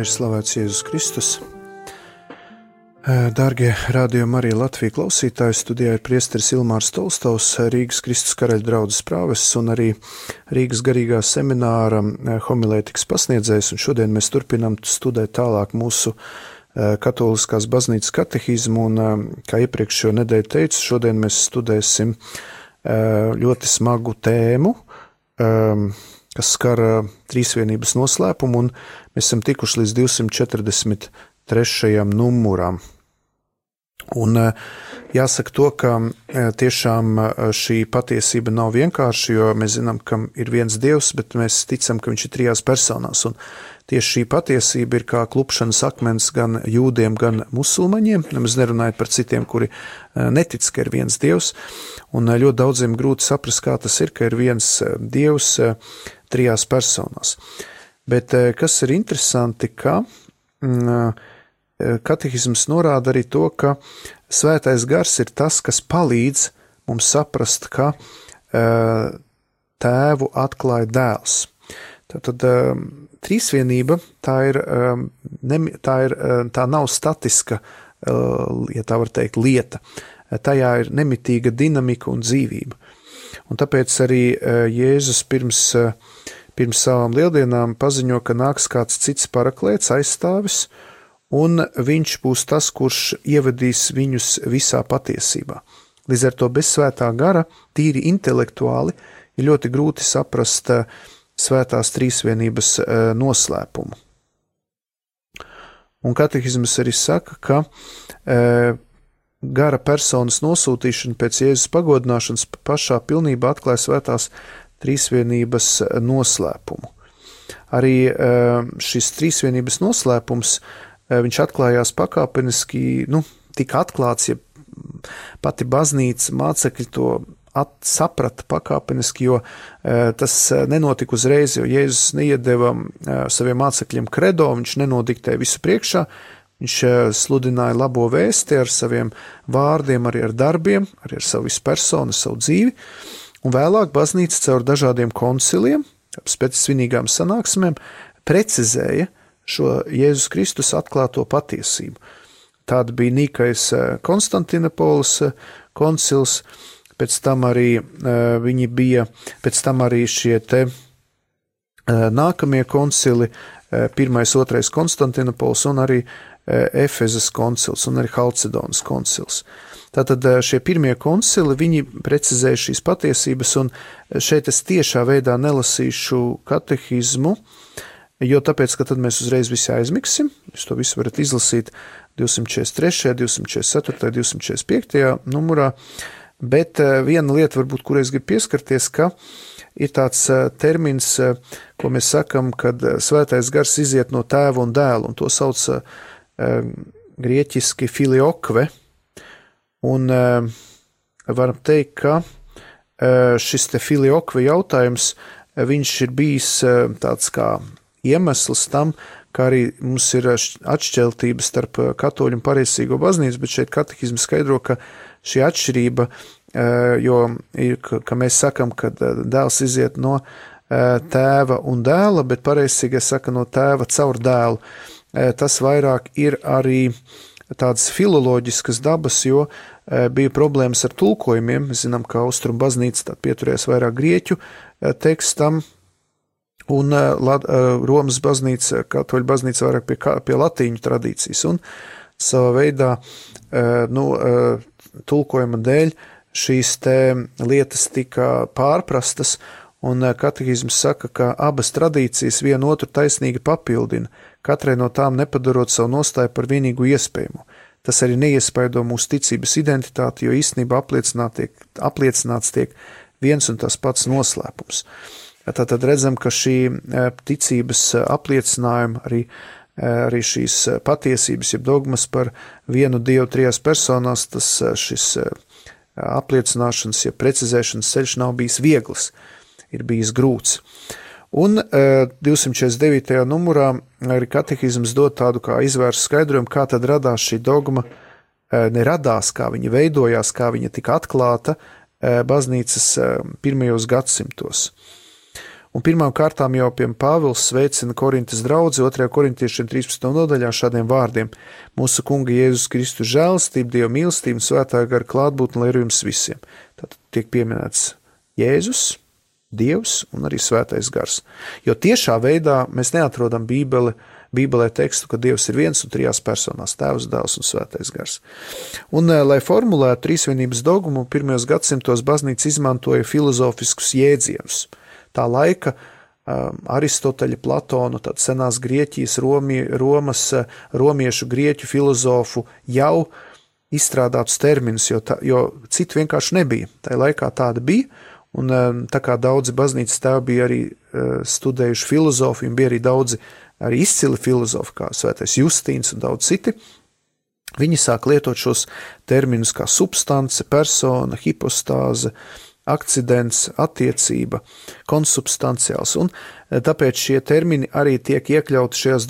Lai ir slavēts Jēzus Kristus. Dārgie Radio Marija Latvija klausītāji, studijā ir priesteris Ilmārs Tolstovs, Rīgas Kristus karaļa draudzes prāvests un arī Rīgas garīgā semināra homilētikas pasniedzējs, un šodien mēs turpinām studēt tālāk mūsu katoliskās baznīcas katehismu, un kā iepriekšējo nedēļu teicu, šodien mēs studēsim ļoti smagu tēmu, kas skar trīsvienības noslēpumu, un mēs esam tikuši līdz 243. numuram. Un jāsaka to, ka tiešām šī patiesība nav vienkārši, jo mēs zinām, ka ir viens Dievs, bet mēs ticam, ka viņš ir trijās personās, un tieši šī patiesība ir kā klupšanas akmens gan jūdiem, gan musulmaņiem, nemaz nerunājot par citiem, kuri netic, ka ir viens Dievs, un ļoti daudziem grūti saprast, kā tas ir, ka ir viens Dievs trijās personās. Bet kas ir interesanti, ka katehisms norāda arī to, ka svētais gars ir tas, kas palīdz mums saprast, ka tēvu atklāja dēls. Tātad trīsvienība, tā nav statiska, ja tā var teikt, lieta. Tajā ir nemitīga dinamika un dzīvība. Un tāpēc arī Jēzus pirms savām lieldienām paziņo, ka nāks kāds cits paraklēts, aizstāvis, un viņš būs tas, kurš ievedīs viņus visā patiesībā. Līdz ar to bez svētā gara, tīri intelektuāli, ir ļoti grūti saprast svētās trīsvienības noslēpumu. Un katehisms arī saka, ka gara personas nosūtīšana pēc Jēzus pagodināšanas pašā pilnībā atklāja svētās trīsvienības noslēpumu. Arī šis trīsvienības noslēpums, viņš atklājās pakāpeniski, tika atklāts, ja pati baznīca mācekļi to saprata pakāpeniski, jo tas nenotika uzreiz, jo Jēzus neiedeva saviem mācekļiem kredo, viņš nenodiktēja visu priekšā, viņš sludināja labo vēsti ar saviem vārdiem, arī ar darbiem, arī ar savu visu personu, savu dzīvi, un vēlāk baznīca caur dažādiem konciliem, pēc svinīgām sanāksmēm, precizēja šo Jēzus Kristus atklāto patiesību. Tāda bija Nīkais Konstantinopolis koncils, pēc tam arī šie te nākamie koncili, 1. 2. Konstantinopolis un arī Efezas koncils un arī Halcedonas koncils. Tātad šie pirmie koncili, viņi precizēja šīs patiesības, un šeit es tiešā veidā nelasīšu katehismu, jo tāpēc, ka tad mēs uzreiz visi aizmiksim, jūs to visu varat izlasīt 243., 244., 245. numurā, bet viena lieta varbūt, kur es gribu pieskarties, ka ir tāds termins, ko mēs sakam, kad svētais gars iziet no tēva un dēla, un to sauc grieķiski filiokve, un varam teikt, ka šis te filiokve jautājums, viņš ir bijis tāds kā iemesls tam, ka arī mums ir atšķeltība starp katoļu un pareizsīgo baznīcu, bet šeit katehisms skaidro, ka šī atšķirība, jo ir, ka mēs sakam, ka dēls iziet no tēva un dēla, bet pareizsīgais saka no tēva caur dēlu. Tas vairāk ir arī tādas filoloģiskas dabas, jo bija problēmas ar tulkojumiem. Mēs zinām, ka Austrum baznīca pieturējās vairāk grieķu tekstam, un Romas baznīca, katoļu baznīca vairāk pie latīņu tradīcijas, un savā veidā tulkojuma dēļ šīs te lietas tika pārprastas, un katehisms saka, ka abas tradīcijas vienu otru taisnīgi papildina, katrai no tām nepadarot savu nostāju par vienīgu iespējamo. Tas arī neiespaido mūsu ticības identitāti, jo īstenībā apliecināts tiek viens un tas pats noslēpums. Tātad redzam, ka šī ticības apliecinājuma, arī šīs patiesības, jeb dogmas par vienu Dievu trijās personās, šis apliecināšanas, jeb precizēšanas ceļš nav bijis viegls, ir bijis grūts. Un 249. numurā arī katehisms dod tādu kā izvērstu skaidrojumu, kā tad radās šī dogma, neradās, kā viņa veidojās, kā viņa tika atklāta baznīcas pirmajos gadsimtos. Un pirmām kārtām jau Pāvils sveicina Korintas draudzi 2. korintiešiem 13. nodaļā šādiem vārdiem: Mūsu Kunga Jēzus Kristus žēlastība, Dieva mīlestība un svētā gara klātbūtne, lai ir jums visiem. Tātad tiek pieminēts Jēzus, Dievs un arī svētais gars. Jo tiešā veidā mēs neatrodam Bībelē tekstu, ka Dievs ir viens un trijās personās – Tēvs, Dēls un svētais gars. Un, lai formulētu trīsvienības dogmu, pirmajos gadsimtos baznīca izmantoja filozofiskus jēdzienus. Tā laika Aristoteļa, Platona, tad senās Grieķijas, Romas, romiešu, grieķu filozofu jau izstrādātus terminus, jo citu vienkārši nebija. Tā laikā tāda bija, un tā kā daudzi baznīcas tēvi bija arī studējuši filozofiju, un bija arī daudzi arī izcili filozofi, kā svētais Justīns un daudz citi, viņi sāk lietot šos terminus kā substance, persona, hipostāze, akcidents, attiecība, konsubstanciāls, un tāpēc šie termini arī tiek iekļauti šajos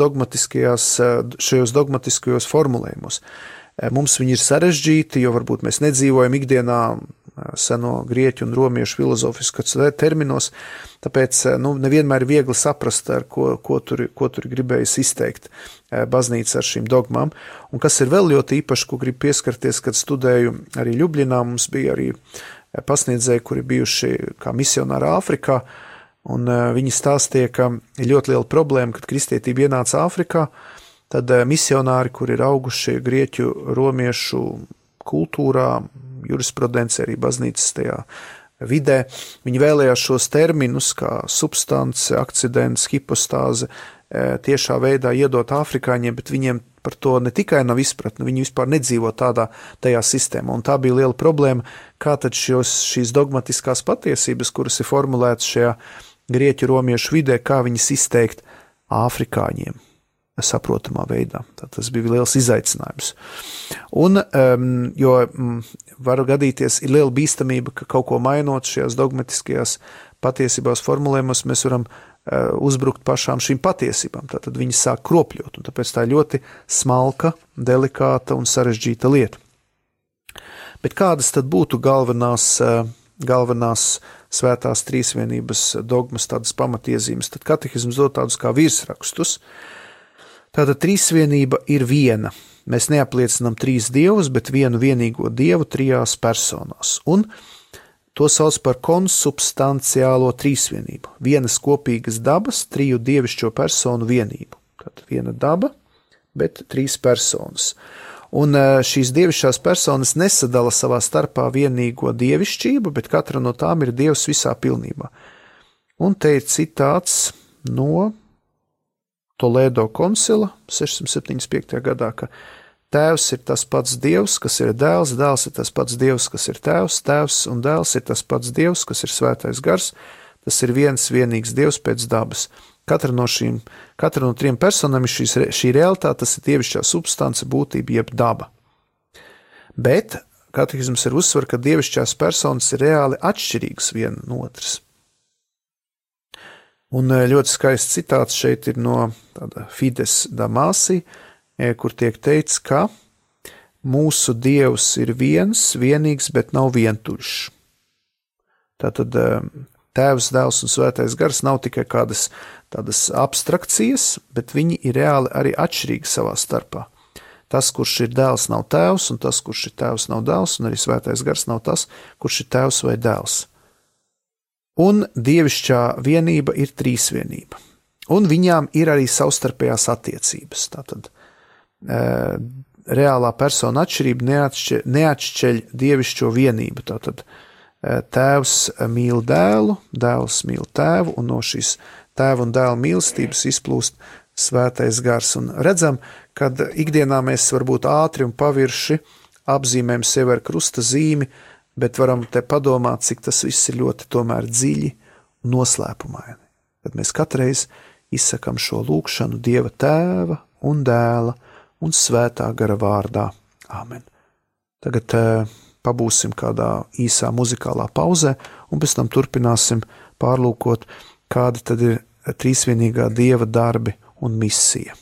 dogmatiskajos formulējumos. Mums viņi ir sarežģīti, jo varbūt mēs nedzīvojam ikdienā seno grieķu un romiešu filozofiskos terminos, tāpēc nevienmēr ir viegli saprast, ar ko tur gribējas izteikt baznīca ar šīm dogmām. Un kas ir vēl ļoti īpaši, ko gribu pieskarties, kad studēju arī Ļubļinā, mums bija arī pasniedzēji, kuri bijuši kā misionāri Āfrikā, un viņi stāstīja, ka ir ļoti liela problēma, kad kristietība ienāca Āfrikā, tad misionāri, kuri ir auguši grieķu, romiešu kultūrā, jurisprudencē, arī baznīcas tajā vidē, viņi vēlējās šos terminus kā substance, akcidents, hipostāze tiešā veidā iedot afrikāņiem, bet viņiem par to ne tikai nav izpratne, viņi vispār nedzīvo tajā sistēmā, un tā bija liela problēma, kā tad šīs dogmatiskās patiesības, kuras ir formulētas šajā grieķu romiešu vidē, kā viņas izteikt afrikāņiem saprotamā veidā. Tas bija liels izaicinājums. Un, jo var gadīties, ir liela bīstamība, ka kaut ko mainot šajās dogmatiskajās patiesībās formulējumos, mēs varam uzbrukt pašām šīm patiesībām. Tātad viņi sāk kropļot, un tāpēc tā ir ļoti smalka, delikāta un sarežģīta lieta. Bet kādas tad būtu galvenās svētās trīsvienības dogmas, tādas pamatiezīmes? Tad katehisms dod tādus kā virsrakstus. Tātad trīsvienība ir viena. Mēs neapliecinām trīs dievus, bet vienu vienīgo dievu trijās personās. Un to sauc par konsubstanciālo trīsvienību. Vienas kopīgas dabas, triju dievišķo personu vienību. Tātad viena daba, bet trīs personas. Un šīs dievišķās personas nesadala savā starpā vienīgo dievišķību, bet katra no tām ir dievs visā pilnībā. Un te ir citāts no Toledo koncila 675. gadā, ka Tēvs ir tas pats Dievs, kas ir dēls, dēls ir tas pats Dievs, kas ir tēvs, tēvs un dēls ir tas pats Dievs, kas ir svētais gars, tas ir viens vienīgs Dievs pēc dabas. Katra no trim personām ir šī realitāte, tas ir dievišķā substance, būtība jeb daba. Bet katehisms ir uzsver, ka dievišķās personas ir reāli atšķirīgas viena no otras. Un ļoti skaists citāts šeit ir no Fides Damasi, kur tiek teikts, ka mūsu Dievs ir viens, vienīgs, bet nav vientuļš. Tātad Tēvs, Dēls un Svētais Gars nav tikai kādas tādas abstrakcijas, bet viņi ir reāli arī atšķirīgi savā starpā. Tas, kurš ir dēls, nav tēvs, un tas, kurš ir tēvs, nav dēls, un arī Svētais Gars nav tas, kurš ir tēvs vai dēls. Un dievišķā vienība ir trīsvienība. Un viņām ir arī savstarpējās attiecības. Tātad reālā persona atšķirība neatšķeļ dievišķo vienību. Tātad tēvs mīl dēlu, dēls mīl tēvu, un no šīs tēva un dēla mīlestības izplūst Svētais Gars. Un redzam, kad ikdienā mēs varbūt ātri un pavirši apzīmējam sevi ar krusta zīmi, bet varam te padomāt, cik tas viss ir ļoti tomēr dziļi un noslēpumaini. Kad mēs katreiz izsakam šo lūgšanu Dieva Tēva un Dēla un Svētā Gara vārdā. Āmen. Tagad pabūsim kādā īsā muzikālā pauzē, un pēc tam turpināsim pārlūkot, kāda tad ir trīsvienīgā Dieva darbi un misija.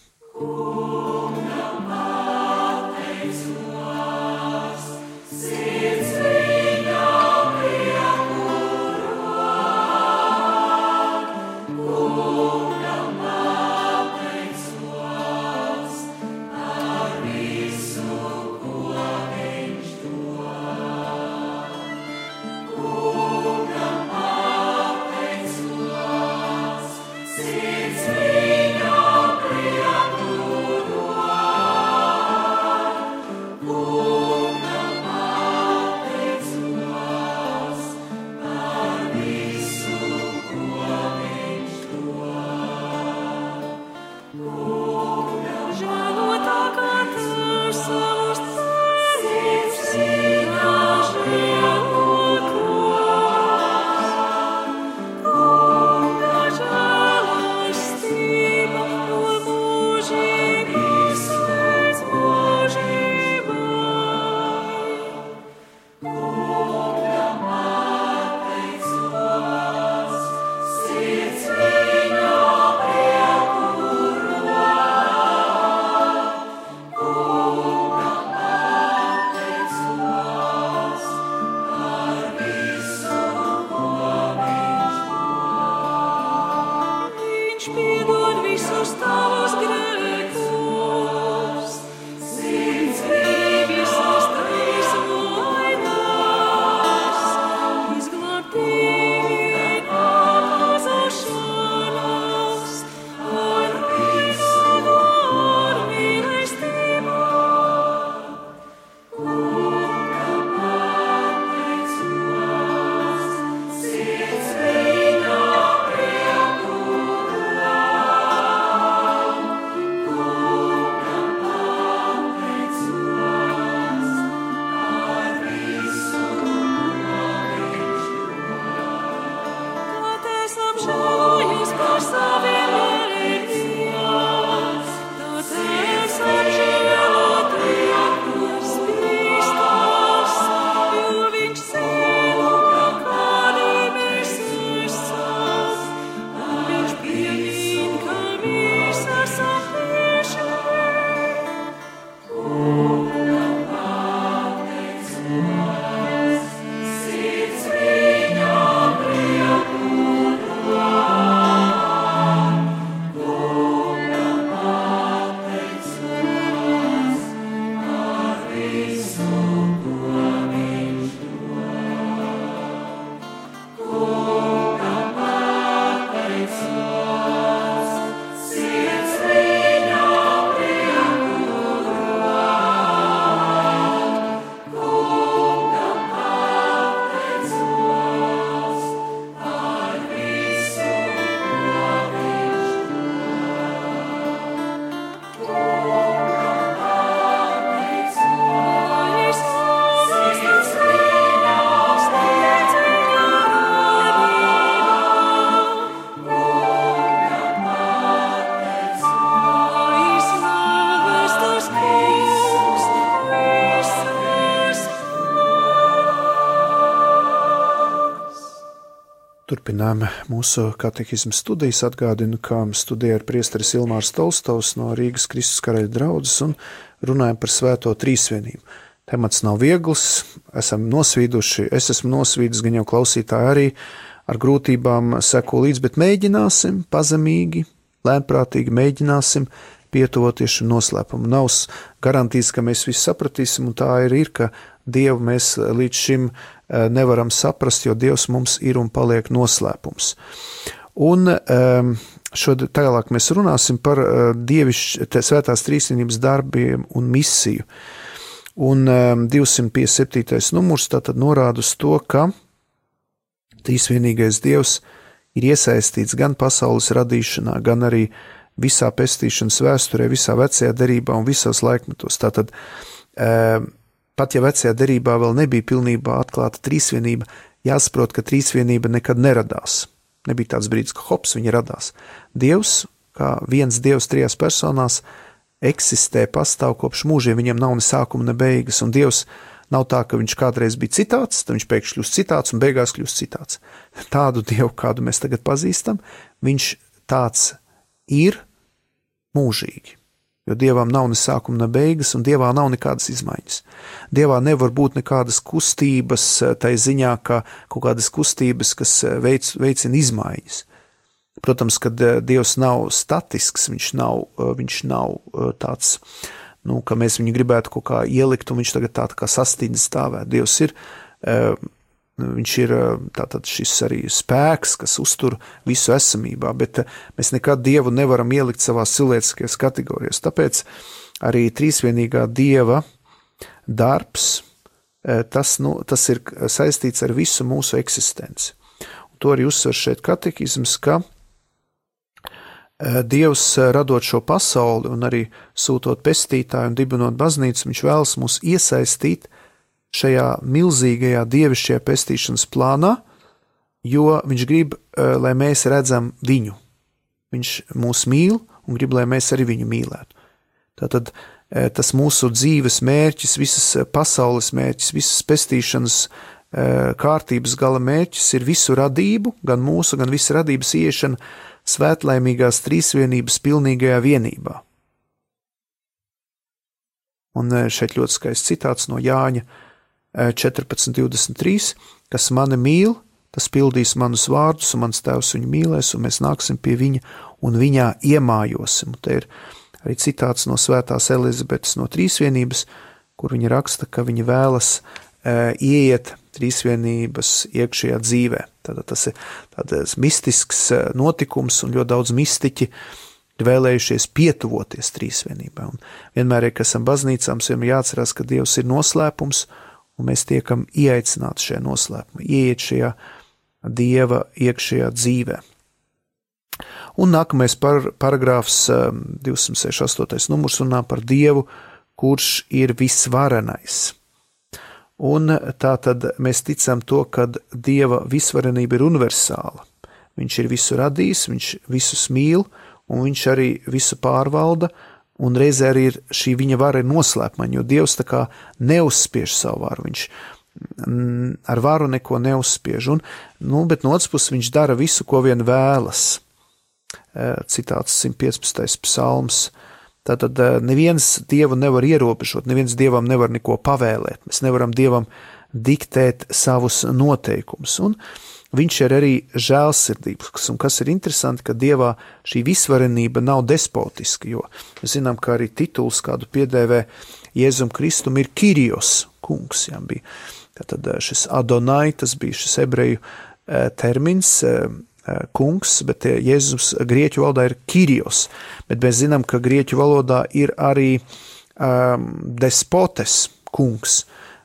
Turpinām mūsu katehismu studijas. Atgādinu, ka studijā ir priesteris Ilmārs Tolstovs no Rīgas Kristus Karaļa draudzes un runājam par svēto trīsvienību. Temats nav viegls, esam nosvīduši, es esmu nosvīdus, gan jau klausītāji arī ar grūtībām seko līdz, bet mēģināsim pazemīgi, lēnprātīgi mēģināsim pietuvoties šim noslēpumam. Nav garantijas, ka mēs visu sapratīsim, un tā ir, ka Dievu mēs līdz šim nevaram saprast, jo Dievs mums ir un paliek noslēpums. Un tālāk mēs runāsim par svētās trīsvienības darbiem un misiju. Un 257. numurs tātad norāda uz to, ka trīsvienīgais Dievs ir iesaistīts gan pasaules radīšanā, gan arī visā pestīšanas vēsturē, visā vecajā derībā un visos laikmetos. Tātad pat ja vecajā derībā vēl nebija pilnībā atklāta trīsvienība, jāsaprot, ka trīsvienība nekad neradās. Nebija tāds brīdis, ka hops, viņa radās. Dievs, kā viens Dievs trijās personās, eksistē, pastāv kopš mūžiem, viņam nav ne sākuma, ne beigas, un Dievs nav tā, ka viņš kādreiz bija citāds, tad viņš pēkšņi kļūst citāds un beigās kļūst citāds. Tādu Dievu, kādu mēs tagad pazīstam, viņš tāds ir mūžīgi. Jo Dievam nav ne sākuma, ne beigas, un Dievā nav nekādas izmaiņas. Dievā nevar būt nekādas kustības, tai ziņā, ka kaut kādas kustības, kas veicina izmaiņas. Protams, ka Dievs nav statisks, viņš nav tāds, ka mēs viņu gribētu kaut kā ielikt, un viņš tagad tā kā sastīdzi stāvēt. Dievs ir, viņš ir tātad šis arī spēks, kas uztur visu esamībā, bet mēs nekad Dievu nevaram ielikt savās cilvēciskajās kategorijās. Tāpēc arī trīsvienīgā Dieva darbs, tas ir saistīts ar visu mūsu eksistenci. Un to arī uzsver šeit katehisms, ka Dievs radot šo pasauli un arī sūtot pestītāju un dibinot baznīcu, viņš vēlas mūs iesaistīt šajā milzīgajā dievišķajā pestīšanas plānā, jo viņš grib, lai mēs redzam viņu. Viņš mūs mīl un grib, lai mēs arī viņu mīlētu. Tātad tas mūsu dzīves mērķis, visas pasaules mērķis, visas pestīšanas kārtības gala mērķis ir visu radību, gan mūsu, gan visu radības ieiešana svētlaimīgās trīsvienības pilnīgajā vienībā. Un šeit ļoti skaists citāts no Jāņa 14.23, kas mani mīl, tas pildīs manus vārdus, un mans tēvs viņu mīlēs, un mēs nāksim pie viņa, un viņā iemājosim. Te ir arī citāts no svētās Elizabetes no trīsvienības, kur viņa raksta, ka viņa vēlas ieiet trīsvienības iekšējā dzīvē. Tātad tas ir tāds mistisks notikums, un ļoti daudz mistiķi vēlējušies pietuvoties trīsvienībā. Un vienmēr, kad esam baznīcā, mums vienmēr jāatcerās, ka Dievs ir noslēpums, un mēs tiekam ieaicināti šajā noslēpumā, ieiet šajā Dieva iekšējā dzīvē. Un nākamais paragrāfs 268. numurs runā par Dievu, kurš ir visvarenais. Un tā tad mēs ticam to, ka Dieva visvarenība ir universāla. Viņš ir visu radījis, viņš visus mīl, un viņš arī visu pārvalda, un reizē arī ir šī viņa vara ir noslēpmaņa, jo Dievs tā kā neuzspiež savu varu, viņš ar varu neko neuzspiež, bet no otras puses viņš dara visu, ko vien vēlas. Citāts 115. psalms. Tātad neviens Dievu nevar ierobežot, neviens Dievam nevar neko pavēlēt, mēs nevaram Dievam diktēt savus noteikumus, un viņš ir arī žēlsirdīgs, un kas ir interesanti, ka Dievā šī visvarenība nav despotiska, jo mēs zinām, ka arī tituls kādu piedēvē Jēzum Kristum ir Kirijos, kungs, jā, bija. Tātad šis Adonai, tas bija šis ebreju termins, kungs, bet Jēzus grieķu valodā ir Kirijos, bet mēs zinām, ka grieķu valodā ir arī despotes, kungs,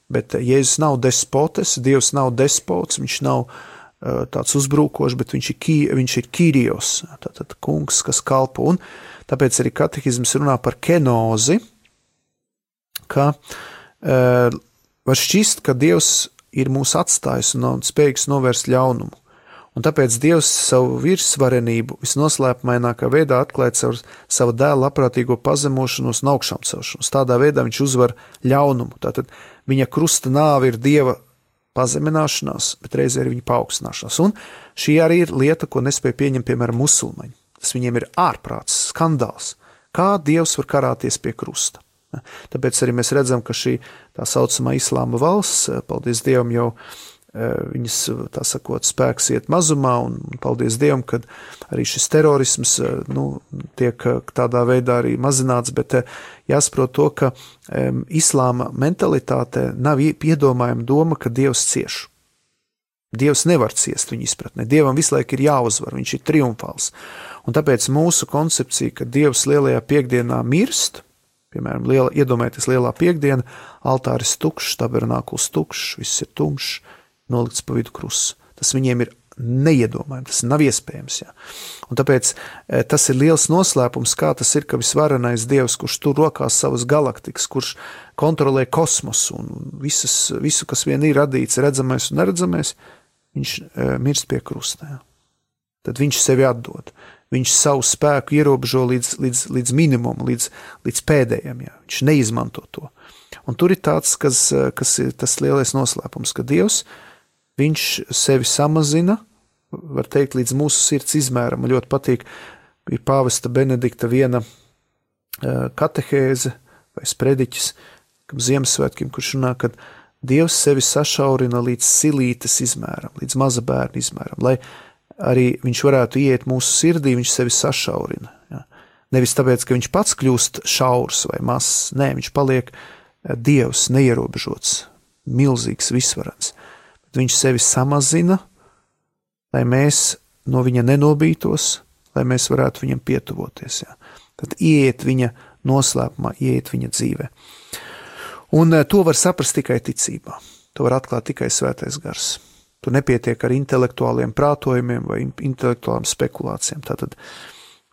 bet Jēzus nav despotes, Dievs nav despots, viņš nav tāds uzbrukošs, bet viņš ir Kirijos, tātad kungs, kas kalpo, un tāpēc arī katehizms runā par kenozi, ka var šķist, ka Dievs ir mūs atstājis un spējīgs novērst ļaunumu. Un tāpēc Dievs savu virsvarenību visnoslēpumainākā veidā atklāja savu dēlu labprātīgo pazemošanos un augšām celšanos. Tādā veidā viņš uzvar ļaunumu. Tātad viņa krusta nāve ir Dieva pazemināšanās, bet reizē ir viņa paaugstināšanās. Un šī arī ir lieta, ko nespēja pieņemt, piemēram, musulmaņi. Tas viņiem ir ārprāts, skandāls. Kā Dievs var karāties pie krusta? Tāpēc arī mēs redzam, ka šī tā saucamā islāma valsts, paldies Dievam, jau viņas, tā sakot, spēks iet mazumā, un paldies Dievam, kad arī šis terorisms tiek tādā veidā arī mazināts, bet jāsaprot to, ka islāma mentalitāte nav iedomājama doma, ka Dievs cieš. Dievs nevar ciest viņa izpratnē. Dievam visu laiku ir jāuzvar, viņš ir triumfāls. Un tāpēc mūsu koncepcija, ka Dievs lielajā piekdienā mirst, piemēram, iedomājieties lielā piekdiena, altāris tukšs, tabernākuls tukšs, viss ir tumšs, nolikts pa vidu krusts. Tas viņiem ir neiedomājami, tas nav iespējams. Jā. Un tāpēc tas ir liels noslēpums, kā tas ir, ka visvarenais Dievs, kurš tur rokās savas galaktikas, kurš kontrolē kosmosu un visu, kas vien ir radīts, redzamais un neredzamais, viņš mirst pie krusta. Jā. Tad viņš sevi atdod. Viņš savu spēku ierobežo līdz minimumu, līdz pēdējiem. Jā. Viņš neizmanto to. Un tur ir tāds, kas ir tas lielais noslēpums, ka Dievs, viņš sevi samazina, var teikt, līdz mūsu sirds izmēram. Man ļoti patīk, ir pāvesta Benedikta viena katehēze vai sprediķis, kam Ziemassvētkiem, kurš runā, ka Dievs sevi sašaurina līdz silītes izmēram, līdz maza bērna izmēram, lai arī viņš varētu iet mūsu sirdī, viņš sevi sašaurina. Ja. Nevis tāpēc, ka viņš pats kļūst šaurs vai mazs, nē, viņš paliek Dievs neierobežots, milzīgs, visvarens. Bet viņš sevi samazina, lai mēs no viņa nenobītos, lai mēs varētu viņam pietuvoties. Ja. Tad ieiet viņa noslēpumā, ieiet viņa dzīvē. Un to var saprast tikai ticībā. To var atklāt tikai svētais gars. Tu nepietiek ar intelektuāliem prātojumiem vai intelektuālām spekulācijām. Tātad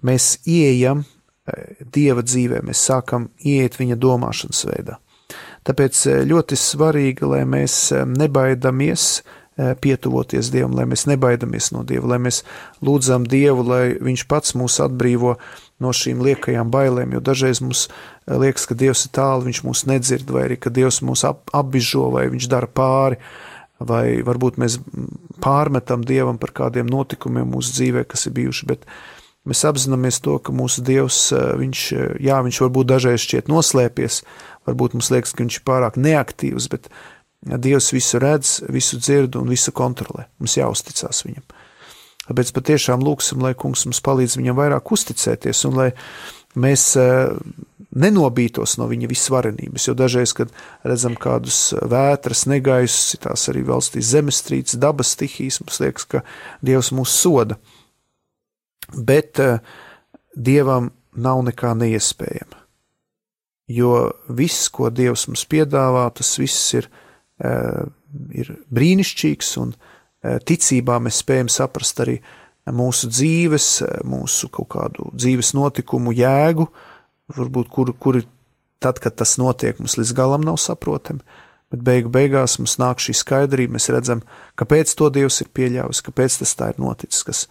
mēs ieejam Dieva dzīvē, mēs sākam ieiet viņa domāšanas veidā. Tāpēc ļoti svarīgi, lai mēs nebaidamies pietuvoties Dievam, lai mēs nebaidamies no Dieva, lai mēs lūdzam Dievu, lai viņš pats mūs atbrīvo no šīm liekajām bailēm, jo dažreiz mums liekas, ka Dievs ir tālu, viņš mūs nedzird, vai arī, ka Dievs mūs apbižo, vai viņš dara pāri, vai varbūt mēs pārmetam Dievam par kādiem notikumiem mūsu dzīvē, kas ir bijuši, bet mēs apzināmies to, ka mūsu Dievs, viņš varbūt dažreiz šķiet noslēpies, varbūt mums liekas, ka viņš ir pārāk neaktīvs, bet Dievs visu redz, visu dzird un visu kontrolē. Mums jāuzticās viņam. Tāpēc patiešām lūksim, lai kungs mums palīdz viņam vairāk uzticēties un lai mēs nenobītos no viņa visvarenības, jo dažreiz, kad redzam kādus vētras, negaisus, tās arī valstīs zemestrīces, dabas stihijas, mums liekas, ka Dievs mūs soda. Bet Dievam nav nekā neiespējama. Jo viss, ko Dievs mums piedāvā, tas viss ir brīnišķīgs, un ticībā mēs spējam saprast arī mūsu dzīves, mūsu kaut kādu dzīves notikumu jēgu, varbūt kuri tad, kad tas notiek, mums līdz galam nav saprotami, bet beigās mums nāk šī skaidrība, mēs redzam, kāpēc to Dievs ir pieļāvis, kāpēc tas tā ir noticis,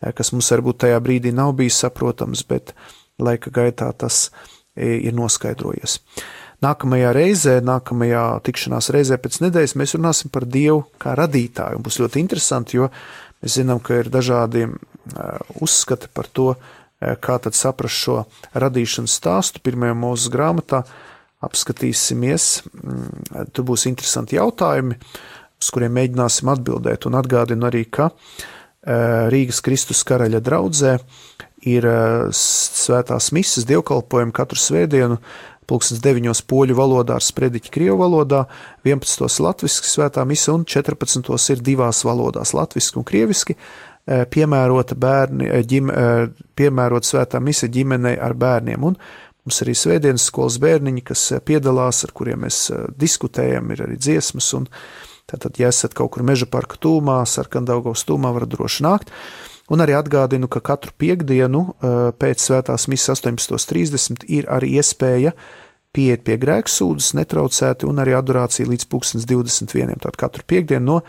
kas mums varbūt tajā brīdī nav bijis saprotams, bet laika gaitā tas ir noskaidrojies. Nākamajā tikšanās reizē pēc nedēļas mēs runāsim par Dievu kā radītāju, un būs ļoti interesanti, jo mēs zinām, ka ir dažādi uzskati par to, kā tad saprast šo radīšanas stāstu. Pirmajā Mūzes grāmatā apskatīsimies, tur būs interesanti jautājumi, uz kuriem mēģināsim atbildēt, un atgādinu arī, ka Rīgas Kristus karaļa draudzē ir svētās mises dievkalpojumi katru svētdienu 9 poļu valodā ar sprediķi krievu valodā, 11 latviski svētā mise un 14 ir divās valodās, latviski un krieviski, piemērota svētā mise ģimenei ar bērniem. Un mums arī svētdienas skolas bērniņi, kas piedalās, ar kuriem mēs diskutējam, ir arī dziesmas, un tātad, ja esat kaut kur Meža parka tūmā, Sarkandaugavas tūmā, varat droši nākt. Un arī atgādinu, ka katru piektdienu pēc svētās misas 18:30 ir arī iespēja pieiet pie grēksūdzes netraucēti un arī adorācija līdz 21. Tātad katru piektdienu no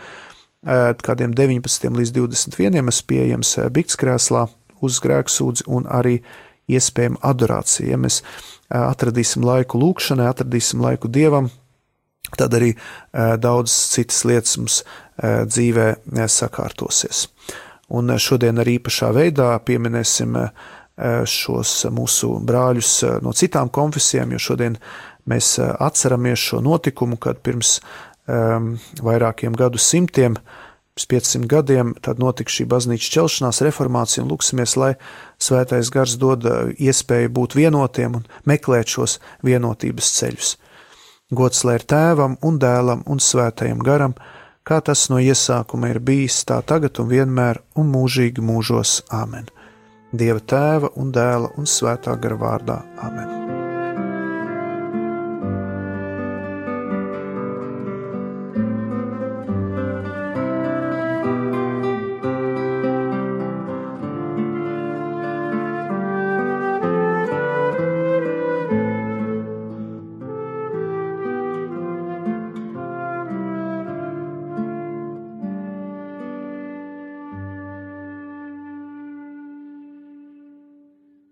kādiem 19 līdz 21 es pieejams biktskrēslā uz grēksūdzi un arī iespējama adorācija. Ja mēs atradīsim laiku lūkšanai, atradīsim laiku Dievam, tad arī daudz citas lietas mums dzīvē sakārtosies. Un šodien arī īpašā veidā pieminēsim šos mūsu brāļus no citām konfesijām, jo šodien mēs atceramies šo notikumu, kad pirms vairākiem gadu simtiem, pirms 500 gadiem, tad notika šī baznīcas ķelšanās reformācija, un lūksimies, lai Svētais Gars dod iespēju būt vienotiem un meklēt šos vienotības ceļus. Gods lai ir Tēvam un Dēlam un Svētajam Garam, kā tas no iesākuma ir bijis, tā tagad un vienmēr un mūžīgi mūžos. Āmen. Dieva Tēva un Dēla un Svētā Gara vārdā. Āmen.